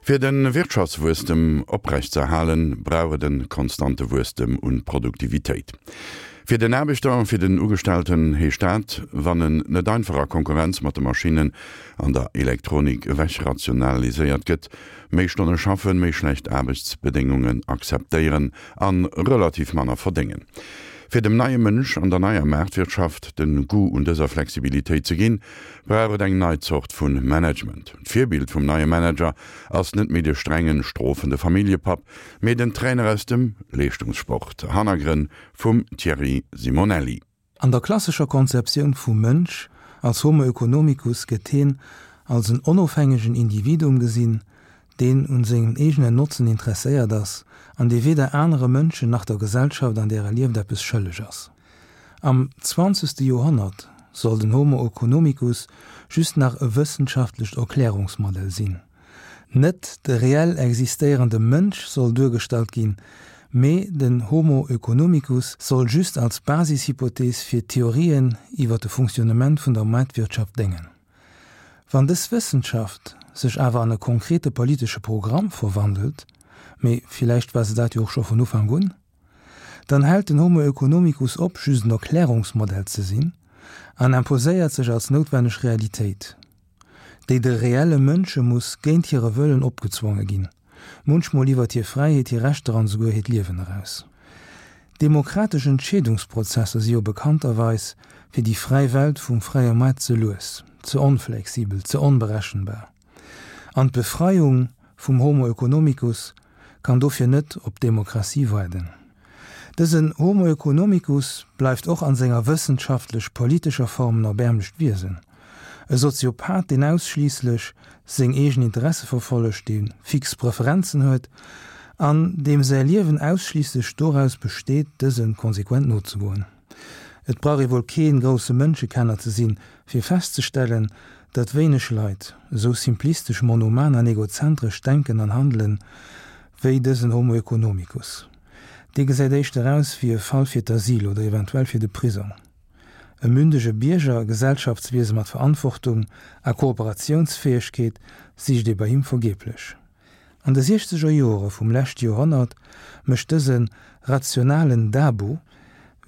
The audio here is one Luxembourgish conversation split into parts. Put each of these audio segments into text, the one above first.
Fir de Wirtschaftswuesstem oprecht ze erhalen, brauch et e konstante Wuesstem un Produktivitéit. Fir den Aarbechter, fir den Ugestellten heescht dat, wann en net einfach a Konkurrenz mat de Maschinnen an der Elektronik ewechrationaliséiert gëtt, méi Stonne schaffen, méi schlecht Aarbechtsbedéngungen akzeptéieren a relativ manner verdéngen. Fir dem neie Mënsch an der neier Maartwirtschaft den Goût un dëser Flexibilitéit ze ginn, brauch et eng nei Zort vun Management. D'Virbild vum neie Manager ass net méi de strengen, strofende Familljepapp, mee den Trainer aus dem Leeschtungssport. Hannergrënn vum Thierry Simonelli. An der klassescher Konzeptioun vum Mënsch als Homo economicus gëtt heen als en onofhängegen Individuum gesinn, deen un sengem eegenen Notzen interesséiert ass an dee weder anere Mënschen nach der Gesellschaft, an där e lieft, eppes schëlleg ass. Am zwanzegste Joerhonnert soll den Homo oeconomicus just nach e wëssenschaftlecht Erklärungsmodell sinn. Net de reell existéierende Mënsch soll duergestallt ginn, mee den Homo oeconomicus soll just als Basishypothees fir d'Theorien iwwer de Fonctionnement vun der Maartwirtschaft déngen. Wann dës Wëssenschaft sech awer an e konkrete politesche Programm verwandelt, mee villäicht war se dat jo och scho vun Ufank un, dann hält den Homo oeconomicus op, just en Erklärungsmodell ze sinn an imposéiert sech als noutwenneg Realitéit, déi de reelle Mënsche muss géint hire Wëllen opgezwonge ginn, munchmol iwwert hir Fräiheet, hir Rechter an esouguer hiert Liewen eraus. Demokratesch Entscheedungsprozesser si jo bekannterweis fir déi fräi Welt vum fräie Moart ze lues, ze onflexibel, ze onberechenbar. An d'Befreiung vum Homo oeconomicus kann dofir net op d'Demokratie waarden. Dësen Homo oeconomicus bleift och an senger wëssenschaftlech-politescher Form en erbäermlecht Wiesen, e Soziopath, deen ausschliisslech seng eegen Interesse verfollegt, dee fix Preferenzen huet an deem säi Liewen ausschliisslech doraus besteet, dëse konsequent nozegoen. Et brauch ee wuel kee grousse Mënschekenner ze sinn, fir festzestellen, datt wéineg Leit esou simplistesch, monoman an egozentresch denken an handelen, wéi dësen Homo economicus. Dee gesäit éischter aus wéi e Fall fir d'Asyl oder eventuell fir de Prisong. E mündege Bierger, e Gesellschaftswiese mat Verantwortung a Kooperatiounsfäegkeet sicht ee bei him vergeblech. An de siechzeger Jore vum leschte Joerhonnert mécht dëse rationalen Dabo,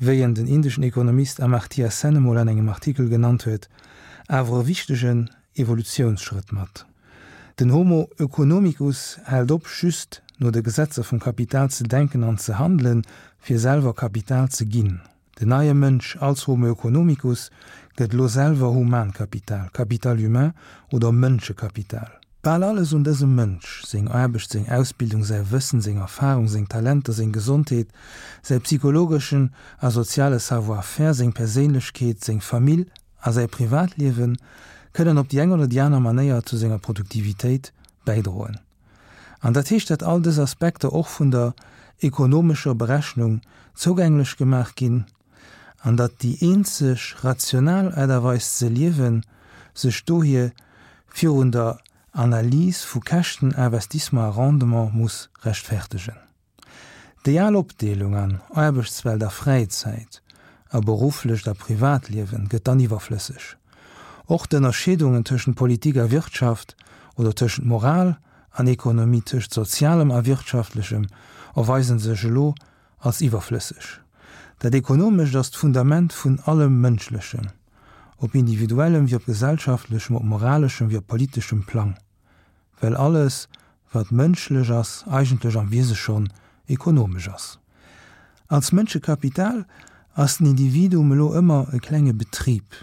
wéi en den indeschen Ekonomist Amartya Sen emol an engem Artikel genannt huet, awer e wichtegen Evolutiounsschrëtt mat. Den Homo oeconomicus hält op, just no de Gesetzer vum Kapital ze denken an ze handelen, fir selwer Kapital ze ginn. Den neie Mënsch als Homo oeconomicus gëtt elo selwer Humankapital, Capital humain oder Mënschekapital. Bal alles un dësem Mënsch, seng Aarbecht, seng Ausbildung, säi Wëssen, seng Erfarung, seng Talenter, seng Gesondheet, säi psychologeschen a soziale Savoir-faire, seng Perséinlechkeet, seng Famill a säi Privatliewen, kënnen op déi eng oder déi aner Manéier zu senger Produktivitéit bäidroen. An dat heescht, datt all dës Aspekter och vun der ekonomescher Berechnung zougänglech gemaach ginn an datt déi eenzeg rational Aart a Weis ze liewen sech dohier virun der Analys vu Käschten, Investissement a Rendement muss rechtfertegen. Déi al Opdeelung an Aarbechtswelt a Fräizäit, a berufflecht a Privatliewen gëtt dann iwwerflësseg. Och d'Ënnerscheedungen tëschent Politik a Wirtschaft oder tëschent Moral an Ekonomie, tëscht Sozialem a Wirtschaftlechem erweisen sech elo als iwwerflësseg. Dat Ekonomescht ass d'Fundament vun allem Mënschlechen, op individuellem wéi op gesellschaftlechem, op moraleschem wéi op politeschem Plang. Well alles, wat mënschlech ass, eigentlech am Wiese schonn ekonomesch ass. Als Mënschekapital ass den Individuum elo ëmmer e klenge Betrib.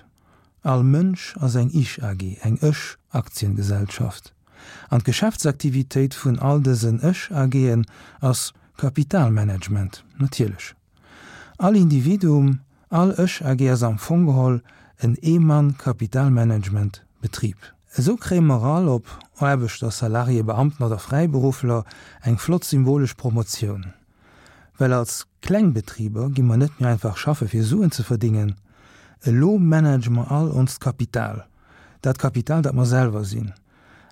All Mënsch ass eng Ich-AG, eng Ech-Aktiengesellschaft. An d'Geschäftsaktivitéit vun all dësen Ech-AGen ass Kapitalmanagement, natierlech. All Individuum, all Ech AG ass am Fong geholl en Ee-Mann-Kapitalmanagement Betrib. Esou kréie mer all, ob Aarbechter, Salarié, Beamten oder Fräiberuffler, eng flott symbolesch Promotioun. Well als Klengbetriber gi mer net méi einfach schaffe fir Suen ze verdingen, elo manage mer all onst Kapital, dat Kapital dat mer selwer sinn.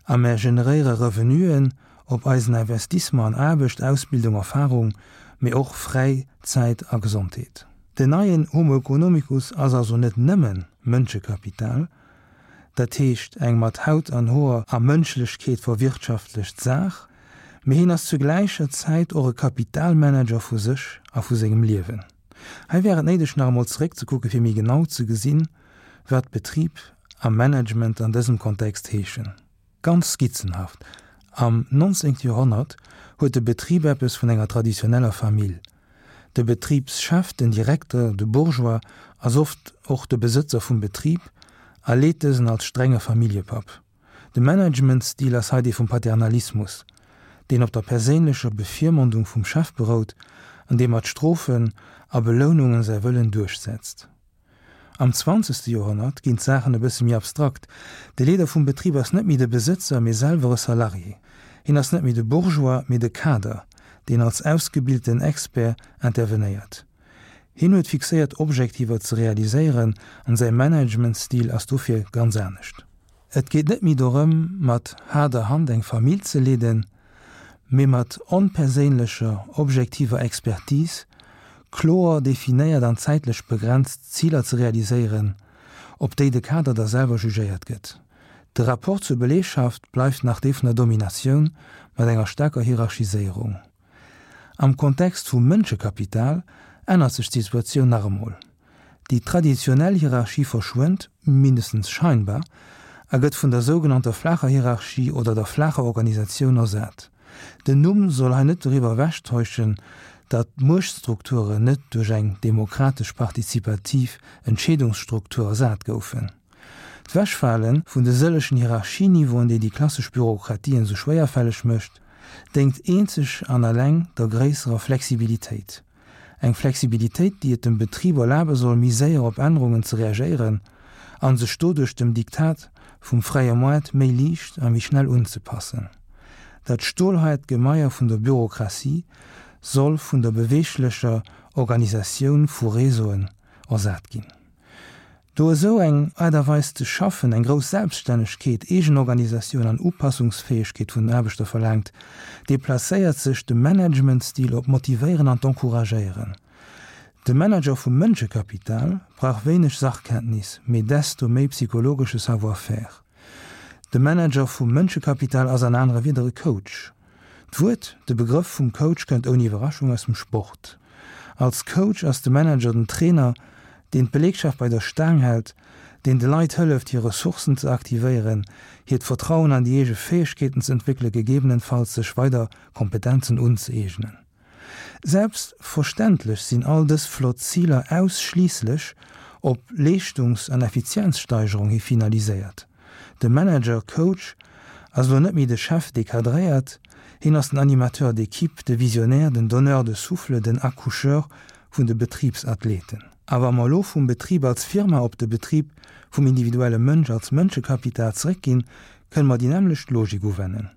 A mär generéiere Revenuen op eisen Investissement an Aarbecht, Ausbildung, Erfarung, mee och Fräizäit a Gesondheet. Den neien Homo economicus ass also net nëmmen Mënschekapital. dat heescht eng mat Haut an Hoer a Mënschlechkeet verwirtschaftlecht Saach, mee hien ass zu gläicher Zäit och e Kapitalmanager vu sech a vu sengem Liewen. Hei wär et néideg nach emol zeréckzekucke fir méi genau ze gesinn, wat Betrib a Management an dësem Kontext heeschen. Ganz skizzenhaft, Am 19. Joerhonnert huet de Betrib eppes vun enger traditioneller Famill. De Betribschef, den Direkter, de Bourgeois, ass oft och de Besëtzer vum Betrib a leet dësen als strenge Familljepapp. De Managementstil ass hei dee vum Paternalismus, deen op der perséinlecher Bevirmondung vum Chef berout an dee mat Strofen a Belounungen säi Wëllen duerchsetzt. Am zwanzegste Joerhonnert ginn d'Saachen e bësse méi abstrakt, De Leeder vum Betrib ass net méi de Besëtzer, mee selwer e Salarié. Hien ass net méi de Bourgeois, mee de Kader, deen als ausgebilten Expert intervenéiert. Hien huet fixéiert Objektiver ze realiséieren an säi Managementstil ass dofir ganz anescht. Et geet net méi dorëm, mat haarder Hand eng Famill ze leeden, mee mat onperséinlecher, objektiver Expertise kloer definéiert an zäitlech begrenzt Ziler ze realiséieren, op déi de Kader da selwer jugéiert gëtt. De Rapport zur Belegschaft bleift nach dee vun der Dominatioun mat enger staarker Hierarchiséierung. Am Kontext vum Mënschekapital ännert sech d'Situatioun nach emol. Déi traditionell Hierarchie verschwënnt, mindestens scheinbar, a gëtt vun der sougenannter flaacher Hierarchie oder der flaacher Organisatioun ersat. Den Numm soll hei net doriwwer ewechtäuschen, datt d'Muechtstrukturen net duerch eng demokratesch-partizipativ Entscheedungsstruktur ersat goufen. D'Wechfale vun de sëllegen Hierarchieniveauen, déi déi klassesch Bürokratien esou schwéierfälleg mécht, déngt eenzeg an alleng der gréisserer Flexibilitéit. Eng Flexibilitéit, déi et dem Betrib erlabe soll, méi séier op Ännerungen ze reagéieren a sech doduerch dem Diktat vum fräie Moart méi liicht a méi schnell unzepassen. Dat stolhaart Gemaier vun der Bürokratie soll vun der beweeglecher Organisatioun vu Réseauen ersat ginn. Do esou eng Aart a Weis ze schaffen eng grouss Selbststännegkeet, Eegenorganisatioun an Upassungsfäegkeet vun den Aarbechter verlaangt, deplacéiert sech de Managementstil op d'Motivéieren an d'Encouragéieren. De Manager vum Mënschekapital brauch wéineg Sachkenntnis, mee desto méi psychologesche Savoir-faire. De Manager vum Mënschekapital ass an anere Wieder e Coach. D'Wuert, de Begrëff vum Coach kënnt ouni Iwwerraschung aus dem Sport. Als Coach ass de Manager den Trainer, deen d'Belegschaft bei der Staang hält, deen de Leit hëlleft, hir Ressourcen ze aktivéieren, hiert Vertrauen an déi eege Fäegkeeten ze entwéckelen, gegebenenfalls sech weider Kompetenzen unzëeegnen. Selbstverständlech sinn all dës flott Ziler ausschliisslech op Leeschtungs an Effizienzsteigerung hi finaliséiert. De Manager, Coach, ass elo net méi de Chef, dee cadréiert, hien ass den Animateur d'équipe, de Visionnaire, den Donneur de souffle, den Accoucheur vun de Betribsathleten. A wa mer elo vum Betrib als Firma op de Betrib vum individuelle Mënsch als Mënschekapital zeréckginn, kënne mer déi nämmlecht Logik uwennen.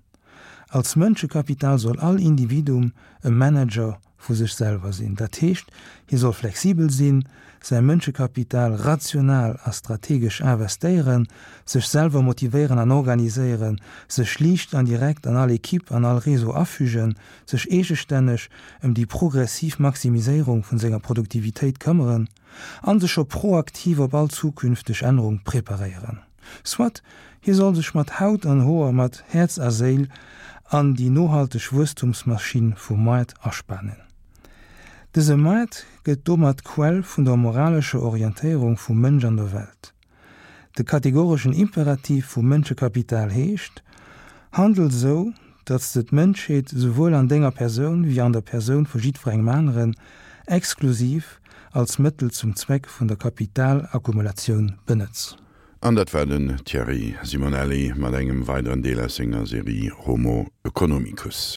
Als Mënschekapital soll all Individuum e Manager vu sech selwer sinn. Dat heescht, hie soll flexibel sinn, säi Mënschekapital rational a strategesch investéieren, sech selwer motivéieren an organiséieren, sech liicht an direkt an all Equipe, an all Réseau afügen, sech eegestänneg ëm déi progressiv Maximiséierung vun senger Produktivitéit këmmeren an sech scho proaktiv op all zukünfteg Ännerung preparéieren. Soit, hie soll sech mat Haut an Hoer, mat Häerz a Séil an déi nohalteg Wuesstumsmaschinn vum Moart aspanen. Dëse Moart gëtt domat d'Quell vun der moralescher Orientéierung vum Mënsch an der Welt. De kategoreschen Imperativ vum Mënschekapital heescht, Handel sou, datt s de d'Mënschheet souwuel an denger Persoun wéi an der Persoun vu jiddwerengem aneren exklusiv als Mëttel zum Zweck vun der Kapitalakkumulatioun benëtz. An dat war den Thierry Simonelli mat engem weideren Deel aus senger Serie Homo Economicus.